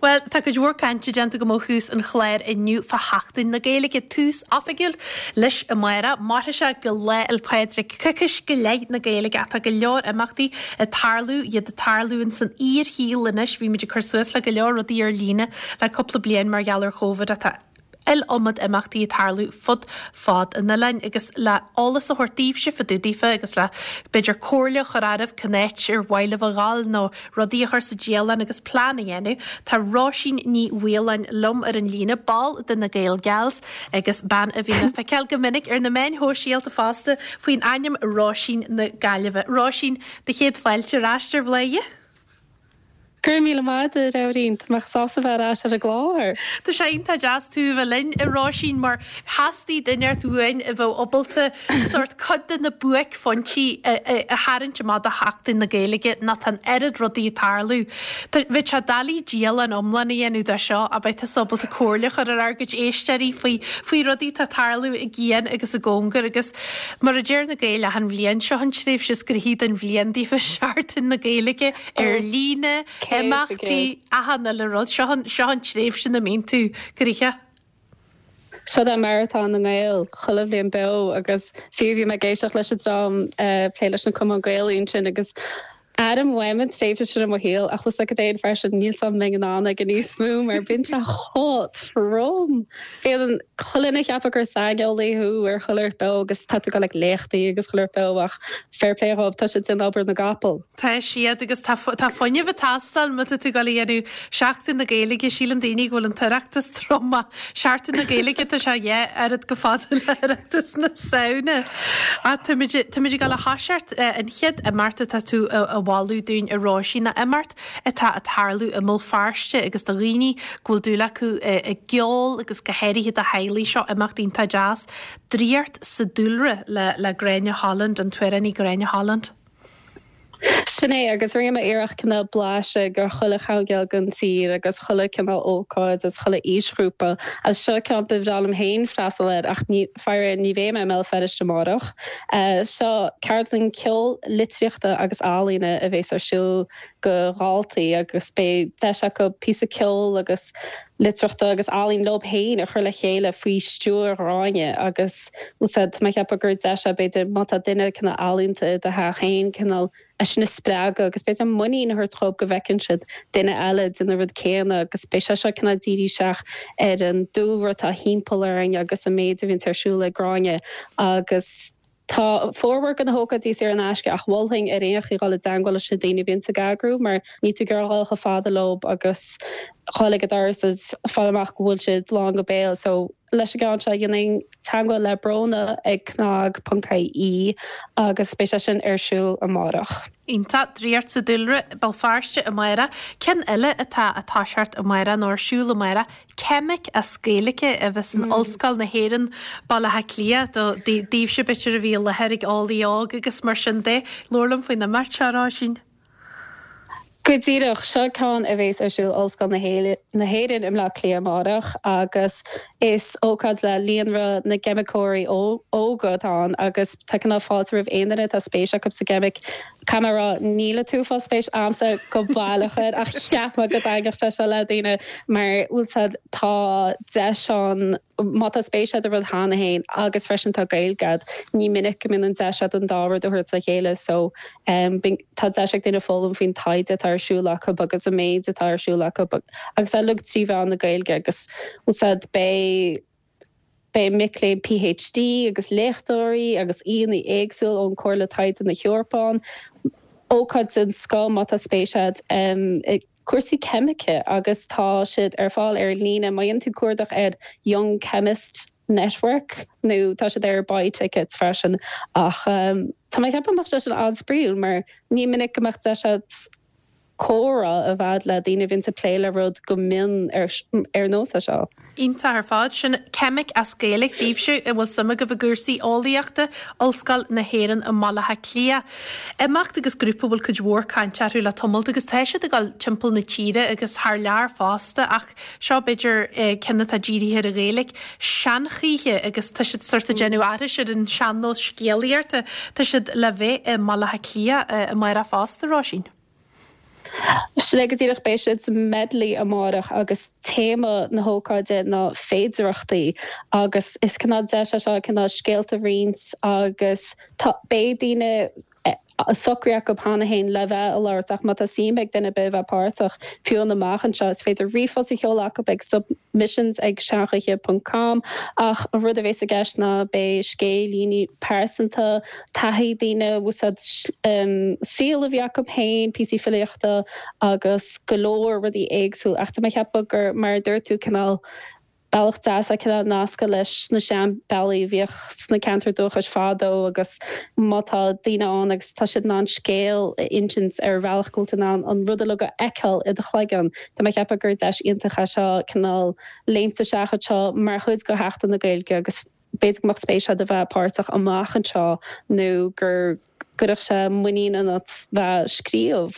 Bhuel, tá cuid mhór cainte déanta agam ó thús an chláir inniu fá Sheachtain na Gaeilge, tús oifigiúil leis amárach. Mairfidh sé go Lá 'le Pádraig, coicís go leith na Gaeilge ach tá go leor imeachtaí ag tarlú, iad ag tarlú ins an fhíorshaol anois. Bhí muid ag cur suas le go leor rudaí ar líne le cúpla bliain mar gheall ar Chóvid ach tá iliomad imeachtaí ag tarlú fud fad an oileáin agus le eolas a thabhairt daoibhse fá dtaobh daofa agus le b'fhéidir comhairle a chur oraibh cén áit ar mhaith libh a dhul nó rudaí a chur sa dialann agus plean a dhéanamh. Tá Róisín Ní Mhaoláin liom ar an líne, ball de na Gael Gals agus bean a bhíonn le feiceáil go minic ar na meáin shóisialta fosta faoin ainm Róisín na Gaillimhe. Róisín, do chéad fáilte ar ais ar Bhladhaire. Go raibh míle maith agat, a Nóirín. Tá mé sásta bheith ar ais ar an gclár. Tá sé iontach deas tú a bheith linn, a Róisín, mar theastaigh duine inteacht uainn a bheadh ábalta sórt cuid de na buaicphointí a tharraingt amach do Sheachtain na Gaeilge nó tá an oiread rudaí ag tarlú. Bheadh sé doiligh dialann iomlán a dhéanamh de seo ach beidh tusa ábalta comhairle a chur ar ár gcuid éisteoirí faoi faoi rudaí atá ag tarlú i gcian agus i gcóngar agus mar a deir na Gaeil achan bhliain, seo an tréimhse is gnoithí den bhliain daofa, Seachtain na Gaeilge. Ar líne, imeachtaí, achan uile rud. Seo an, seo an tréimhse ina mbíonn tú gnoitheach. Seo é maratón na nGael, chuile bhliain beo agus fiú bhí mé ag éisteacht leis an dream ag plé leis na Cumann Gaelaí ansin agus airím uaim an tréimhse sin i mo shaol ach bhfuil 's agat féin freisin níl 's agam an mbeinn in ann aige níos mó mar bíonn sé chomh trom. Bíonn chuile dhuine ag ceapadh gur saineolaí thú ar chuile shórt beo agus tá tú ag dul ag léachtaí agus chuile shórt beo ach fair play dhóibh tá siad ag déanamh obair na gcapall. Tá siad, agus tá tá fuinneamh ag teastáil má tá tú ag dul a dhéanamh Seachtain na Gaeilge, síleann daoine go bhfuil an tOireachtas trom ach Seachtain na Gaeilge tá sé a dhá oiread chomh fada le hOireachtas na Samhna. Ach táimid táimid ag dul a thoiseacht an chéad imeacht atá tú a mholadh dúinn a Róisín ná imeacht atá ag tarlú i mBéal Feirste agus do dhaoine go bhfuil dúil acu i gceol agus go háirithe do theaghlaigh seo imeacht iontach deas, Draíocht sa Dúlra le le Gráinne Holland, an t-amhránaí Gráinne Holland. Sin é, agus rinne mé iarracht cineál blaiseadh de chuile choirnéal den tír agus chuile cineál ócáid agus chuile aoisghrúpa. Agus seo ceann ba bhreá liom féin freastal air ach ní, faraor ní bheidh mé i mBéal Feirste amárach. Seo ceardlann ceoil, litríochta agus ealaíne a bhéas ar siúl do dhaltaí agus beidh deis acu píosa ceoil agus litríochta agus ealaín leob féin a chur le chéile faoi stiúir Ghráinne agus úsáid, tá mé ag ceapadh gur deis é b'fhéidir má tá duine cineál ealaíonta i do theach féin cineál é sin a spreagadh agus b'fhéidir muinín a thabhairt dhóibh go bhfeiceann siad duine eile ag déanamh an rud céanna agus beidh sé seo cineál dírithe isteach ar an dúlra atá thimpeall orainn agus an méid a bhíonns ar siúl ag Gráinne agus Tá formhór de na hócáidí saor in aisce ach mholfainn ar aon chaoi dhul i dteangmháil leis na daoine a bhíonns ag eagrú mar níl tú ag iarraidh dhul chomh fada leob agus dhul ag an doras is fáil amach go bhfuil siad lán go béal so leis an gceann seo dhéanfainn teangmháil le Bróna ag cnag ponc ie agus beidh sé sin ar siúl amárach. Iontach, Draíocht sa Dúlra, Béal Feirste amárach. Ceann eile atá ag toiseacht amárach nó ar siúl amárach Ceimic as Gaeilge a bheas in Ollscoil na hÉireann, Baile Átha Cliath, do daoibhse b'fhéidir a bhí i láthair ag Eolaí Óg agus mar sin de. Labhair liom faoin imeacht seo, a Róisín. Go díreach, seo ceann a bhéas ar siúl Ollscoil na hÉireann i mBleá Cliath amárach agus is ócáid le Líonra na gCeimiceoirí Óga atá ann agus tá cineál fáilte roimh aon duine atá spéis acu sa gceimic. Caithfidh mé a rá, níl an t-uafás spéis a'msa go baileach air ach cheap mé go dtaitneodh sé seo le daoine mar bhfuil 's a'd tá deis ann má tá spéis a'd i rud cheana féin agus freisin tá Gaeilge a'd, ní minic go mbíonn an deis a'd an dá rud a thabhairt le chéile so tá deis ag daoine foghlaim faoin taighde atá ar siúl acu agus an méid atá ar siúl acu agus é uilig trí mheán na Gaeilge agus bhfuil 's a'd beidh Beidh mic léinn PhD agus léachtóirí agus aíonna éagsúil ón Comhairle Taighde na hEorpa ann. Ócáid den scoth má tá spéis agat i gcúrsaí ceimice agus tá siad ar fáil ar líne má dhéanann tú cuardach ar Young Chemist Network nó tá siad ar Buy Tickets freisin ach tá mé ag ceapadh go mbeadh sé sin an-spraíúil mar ní minic go mbeadh deis agat comhrá a bheith le daoine a bhíonns ag plé le rud go mion ar nós é seo. Iontach ar fad. Sin Ceimic as Gaeilge daoibhse a bhfuil suim agaibh i gcúrsaí eolaíochta, Ollscoil na hÉireann i mBaile Átha Cliath. Imeacht agus grúpa a bhfuil cuid mhór cainte orthu le tamalt agus tá siad ag dul timpeall na tíre agus thar lear fosta ach seo b'fhéidir ceann atá dírithe ar an Ghaeilge, Seanchoíche agus tá siad sort ag déanamh aithris ar an sean-nós scéalaíochta. Tá siad le bheith i mBaile Átha Cliath amárach fosta, Róisín. Sin é go díreach, beidh siad sa Medley amárach agus téama na hócáide ná féidearthachtaí agus is cineál deis é seo cineál scéalta a roinnt agus tá, beidh daoine socraithe acu cheana féin le bheith ag labhairt ach má tá suim ag duine ar bith bheith páirteach fiú an amach anseo is féidir ríomhphost a sheoladh acu ag submissions ag seanchoíche ponc com ach an rud a bhéas i gceist ná beidh scéilíní pearsanta, taithí daoine, úsáid saol a bhí acu féin, píosaí filíochta agus go leor rudaí éagsúil ach tá mé ag ceapadh gur mar a dúirt tú cineál bealach deas é cineál nascadh leis na seanbhealaí a bhíodh sna ceantair dúchais fadó agus má tá daoine ann agus tá siad in ann scéal a insint ar bhealach go bhfuil tú in ann an rud uilig a fheiceáil i do chloigeann, tá mé ag ceapadh gur deis iontach é seo cineál léimt isteach anseo mar chuid de Sheachtain na Gaeilge agus b'fhéidir go mbeadh spéis agat a bheith páirteach amach anseo nó gur gcuirfeadh sé muinín ionat bheith ag scríobh.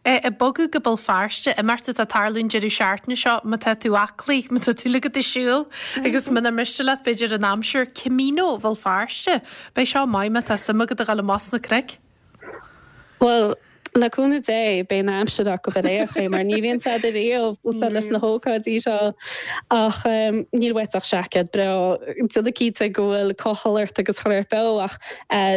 Ag bogadh go Béal Feirste, imeacht atá ag tarlú an deireadh seachtaine seo, má tá tú aclaí, má tá tú uilig ag siúl agus munar miste leat b'fhéidir an aimsir, Camino Bhéal Feirste. Beidh seo maith má tá suim agat a dhul amach sna cnoic. Bhuel, le cúnamh Dé, beidh an aimsir acu ar aon chaoi, mar ní bhíonn said ariamh úsáid leis na hócáidí seo. Ach níl uait ach seaicéad breá, déanamh cinnte go bhfuil cochall ort agus chur ort beo. Ach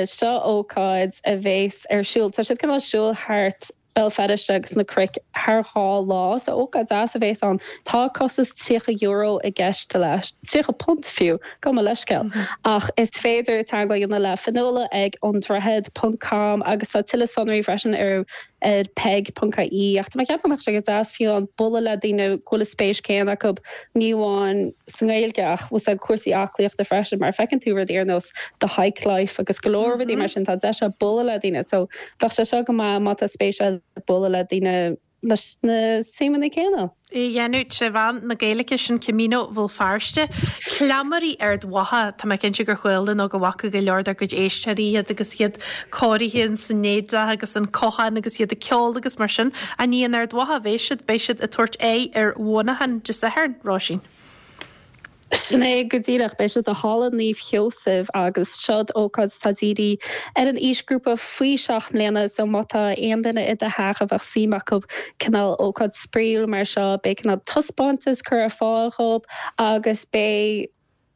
seo ócáid a bhéas ar siúl, tá siad cineál siúl thart Béal Feirste agus na cnoic thar 2 lá, so ócáid deas a bhéas ann. Tá costas €30 i gceist leis, £30 fiú, gabh mo leithscéal. Ach is féidir teagmháil a dhéanamh le Fionnuala ag androichead ponc com agus tá tuilleadh sonraí freisin ar ar peig ponc ie. Ach tá mé ag ceapadh go mbeadh sé go deas fiú an bualadh le daoine go bhfuil an spéis céanna acu, ní amháin sa nGaeilge ach bhfuil cúrsaí aclaíochta freisin mar feiceann tú rudaí ar nós The Hike Life agus go leor rudaí mar sin, tá deis a'd bualadh le daoine so bheadh sé seo go maith má tá spéis a'd bualadh le daoine leis na suimeanna céanna. É a dhéanamh tré mheán na Gaeilge, sin Camino Bhéal Feirste. Cleamairí Ard Mhacha, tá mé cinnte gur chuala nó go bhfaca go leor dár gcuid éisteoirí iad agus iad cóirithe ins an éadach agus an cochán agus iad ag ceol agus mar sin. Ach ní in Ard Mhacha a bheidh siad, beidh siad ag tabhairt aghaidh ar Mhuineachán Dé Sathairn, Róisín. Sin é go díreach. Beidh siad i Halla Naomh Sheosaimh agus seod ócáid atá dírithe ar an aoisghrúpa faoi 7 mbliana so má tá aon duine i do theach a bheadh suim acu cineál ócáid spraíúil mar seo beidh cineál taispeántas curtha ar fáil dhób agus beidh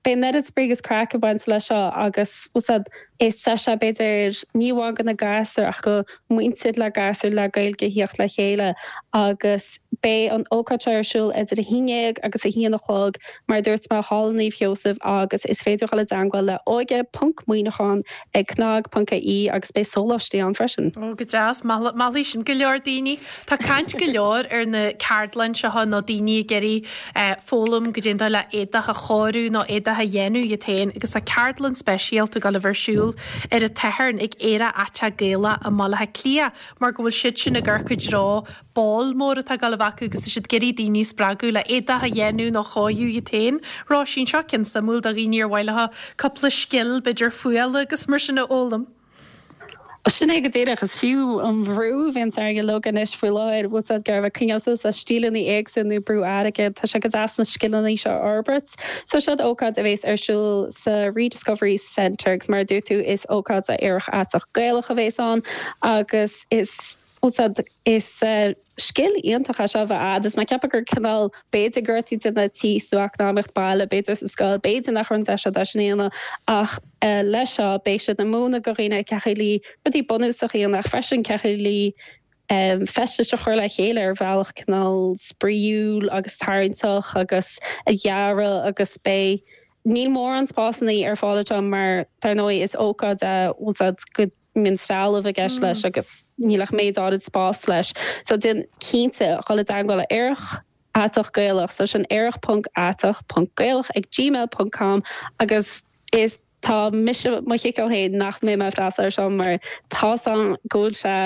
beidh an oiread spraoi agus craic ag baint leis seo agus bhfuil 's a'd is deis é b'fhéidir ní amháin do na gasúir ach do muintir le gasúir le Gaeilge a thíocht le chéile agus beidh an ócáid seo ar siúl idir 11 agus 1 a chlog mar a dúirt mé, Halla Naomh Sheosaimh agus is féidir dhul i dteangmháil le óige ponc Muineachán ag cnag ponc ie agus beidh sóláistí ann freisin. Ó go deas, meallfaidh sin go leor daoine. Tá caint go leor ar na ceardlanna seo nó daoine ag iarraidh foghlaim goidé an dóigh le éadach a chóiriú nó éadach a dhéanamh iad féin agus tá ceardlann speisialta ag dul a bheith ar siúl ar an tSatharn ag Aerach Aiteach Gaelach i mBaile Átha Cliath mar go bhfuil siad sin ag amharc i dtreo ball mór atá ag dul a bheith acu agus tá siad ag iarraidh daoine a spreagadh le éadach a dhéanamh nó a chóiriú iad féin. Róisín, seo ceann suimiúil do dhaoine ar mhaith leo cúpla scil, b'fhéidir fuála agus mar sin a fhoghlaim. Sin é go díreach. Is fiú an bhrú a bhíonns orainn uilig anois faoi láthair, bhfuil 's a'd, ag iarraidh coinneáil suas le stíleanna éagsúla nó brú airgid, tá sé go deas na scileanna seo a fhorbairt. So seod ócáid a bhéas ar siúl sa Rediscovery Centre agus mar a dúirt tú is ócáid aerach aiteach Gaelach a bhéas ann agus is, bhfuil 's a'd, is scil iontach é seo a bheith a'd is mé ag ceapadh gur cineál, b'fhéidir go raibh tú ag déanamh tíos nó eacnamaíocht baile, b'fhéidir sa scoil, b'fhéidir nach raibh an deis a'd é sin a dhéanamh ach leis seo beidh siad ag múineadh do dhaoine cén chaoi le rudaí bunúsacha a dhéanamh ach freisin cén chaoi le feistis a chur le chéile ar bhealach cineál spraíúil agus tarraingteach agus a dhearadh agus beidh níl mórán spásanna ar fáil anseo mar dar ndóigh is ócáid é bhfuil 's a'd go mbíonn trealamh i gceist leis agus níl ach méid áirid spás leis. So déan cinnte dhul i dteangmháil le Aerach Aiteach Gaelach, so sin aerach ponc aiteach ponc gaelach ag gmail ponc com agus is tá mise mo chiceáil féin nach mbeidh mé ag freastal ar seo mar tá's a'm go bhfuil sé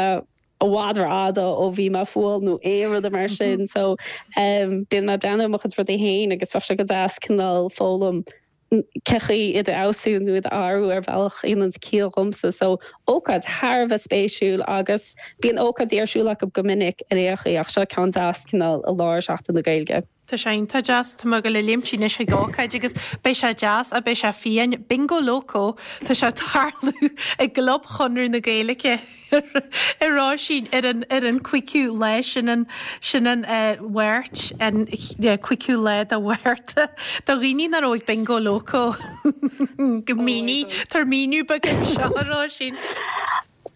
i bhfad rófhada ó bhí mé ag fuáil nó aon rud mar sin so bíonn mé ag breathnú ar mo chuid rudaí féin agus bheadh sé go deas cineál foghlaim cén chaoi iad a fheabhsú nó iad a athrú ar bhealach a dhéanann ciall dhomsa. So, ócáid thar a bheith spéisiúil agus bíonn ócáidí ar siúl acu go minic ar aon chaoi ach seo ceann deas cineál i lár Seachtain na Gaeilge. Tá sé iontach deas. Tá mé ag dul a léimt anois chuig ócáid agus beidh sé deas ach beidh sé fiáin. Bingo Loco, tá sé ag tarlú i gClub Chonradh na Gaeilge a Róisín ar an ar an cúigiú lá sin an sin an Mháirt an cúigiú lá de Mhárta. Do dhaoine nach raibh ag Bingo Loco go mínigh tabhair míniú beag anseo a Róisín.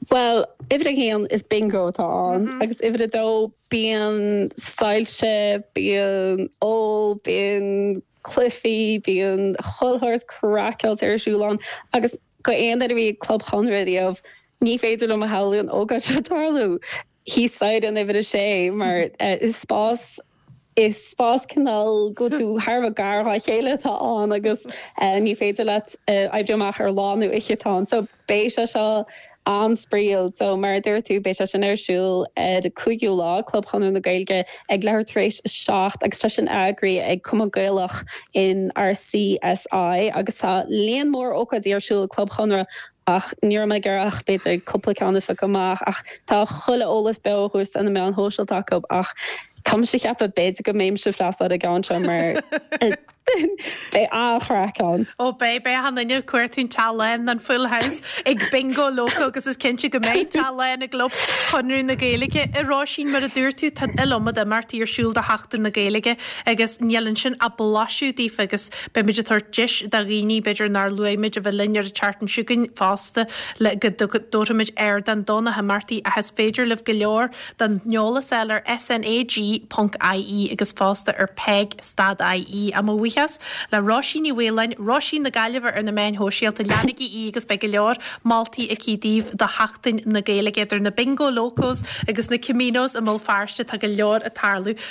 Bhuel, uimhir a haon, is bingo atá ann, agus uimhir a dó, bíonn soilse, bíonn ól, bíonn cluichí, bíonn chuile shórt craiceáilte ar siúl ann, agus go aon duine a bhí ag Club Chonradh riamh, ní féidir liom a shamhlú an ócáid seo tarlú thíos staighre in uimhir a sé, mar is spás Is spás cineál go bhfuil tú thar a bheith gar dhá chéile atá ann agus ní féidir leat oibriú amach ar lá nó oíche atá ann. So beidh sé seo an-spraíúil. So mar a dúirt tú beidh sé sin ar siúl ar an 5ú lá, Club Chonradh na Gaeilge ag leathuair tar éis a 7 agus tá sin eagraithe ag Cumann Gaelach in RCSI agus tá líon mór ócáidí ar siúl ag Club Chonradh ach ní raibh mé ag iarraidh ach b'fhéidir cúpla ceann a phiocadh amach ach tá chuile eolas beo á thabhairt ar na meáin shóisialta acu ach tá mise ag ceapadh b'fhéidir go mbeinnse ag freastal ar an gceann seo mar beidh an-chraic ann. Ó beidh, beidh achan duine ag cuartú an teach lán, an full house ag Bingo Loco agus is cinnte go mbeidh teach lán i gClub Chonradh na Gaeilge. A Róisín, mar a dúirt tú, tá an iliomad imeachtaí ar siúl do Sheachtain na Gaeilge agus níl ansin ach blaiseadh daofa agus Beidh muid ag tabhairt deis do dhaoine, b'fhéidir nár luaigh muid, a bheith linn ar an tseachtain seo chugainn fosta le go dtabharfaimid ardán do na himeachtaí ach is féidir libh go leor den eolas a fháil ar SNAG ponc IE agus fosta ar peig stad IE. Á mo bhuíochas le Róisín Ní Mhaoláin, Róisín na Gaillimhe ar na meáin shóisialta, leanaigí í agus beidh go leor moltaí aici daoibh do Sheachtain na Gaeilge idir na Bingo Locos agus na Caminos i mBéal Feirste, tá go leor ag tarlú.